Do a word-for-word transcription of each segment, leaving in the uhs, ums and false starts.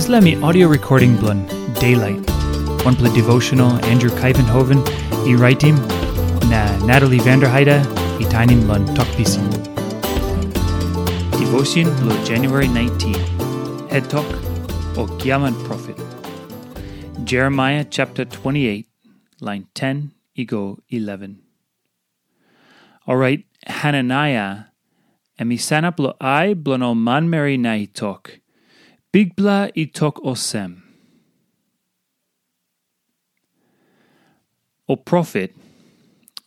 Dispela mi audio recording bilong Daylight, wanpela devotional Andrew Kaivenhoven i raitim, na Natalie Vanderheide i tainim long Tok Pisin. Devotion bilong January nineteen, Het Tok, o Giaman Profet. Jeremiah chapter twenty-eight, line ten i go eleven. Orait Hananaia em i sanap long ai bilong ol manmeri na i tok, "Bikpela i tok olsem, ol profet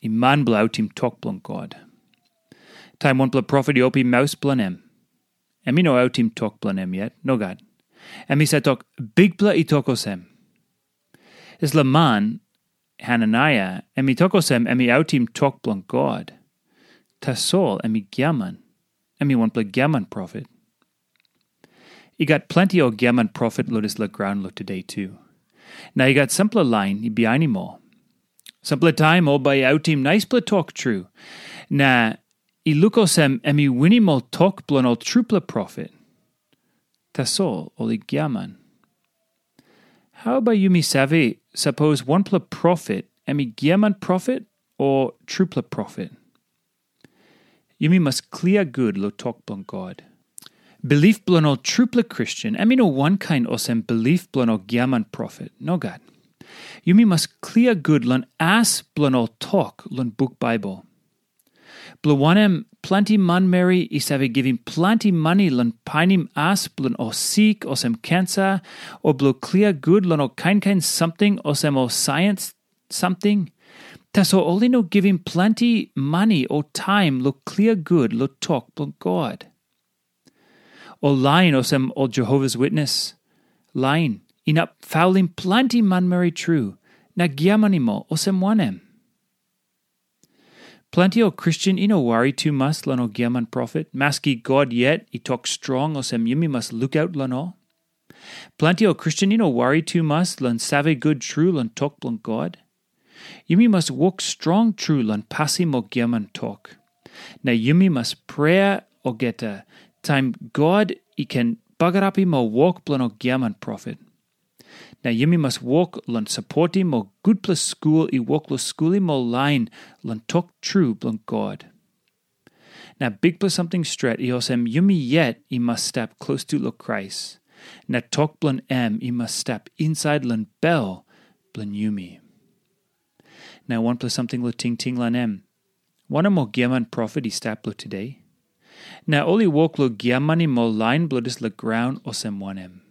i man bilong autim tok bilong God. Taim wanpela profet i opim maus bilong em, em i no autim tok bilong em yet, nogat. Em i save tok, 'Bikpela i tok olsem.' Dispela man, Hananaia, em i tok olsem em i autim tok bilong God. Tasol em i giaman. Em i wanpela giaman profet." I gat planti ol giaman profet long dispela graun long tude tu. Na i gat sampela lain i bihainim ol. Sampela taim ol bai i autim naispela tok tru, na i luk olsem em i winim ol tok bilong ol trupela profet. Tasol ol i giaman. Hau bai yumi save, sapos wanpela profet em i giaman profet o trupela profet? Yumi mas klia gut long tok bilong God. Bilip bilong ol trupela Kristen em i no wankain olsem bilip bilong ol giaman profet. Nogat. Yumi mas klia gut long as bilong ol tok long buk Baibel. Bilong wanem, planti manmeri i save givim planti mani long painim as bilong ol sik olsem kensa, o bilong klia gut long ol kain kain samting olsem ol saiens samting. Tasol ol i no givim planti mani o taim long klia gut long tok bilong God. Ol lain olsem ol Jehovas Witnes lain inap faulim planti manmeri tru na giamanim ol olsem wanem? Planti ol Kristen i no wari tumas long ol giaman profet, maski God yet i tok strong olsem yumi mas lukaut long ol. Planti ol Kristen i no wari tumas long save gut tru long tok bilong God. Yumi mas wok strong tru long pasim ol giaman tok. Na yumi mas prea olgeta taim God i ken bagarapim ol wok bilong ol giaman profet. Na yumi mas wok long sapotim ol gutpela skul i wok long skulim ol lain long tok tru bilong God. Na bikpela samting stret i olsem yumi yet i mas stap klostu long Krais, na tok bilong em i mas stap insait long bel bilong yumi. Na wanpela samting long tingting long em, wanem ol giaman profet i stap long tude? Na ol i wok long giamanim ol lain bilong dispela graun olsem wanem?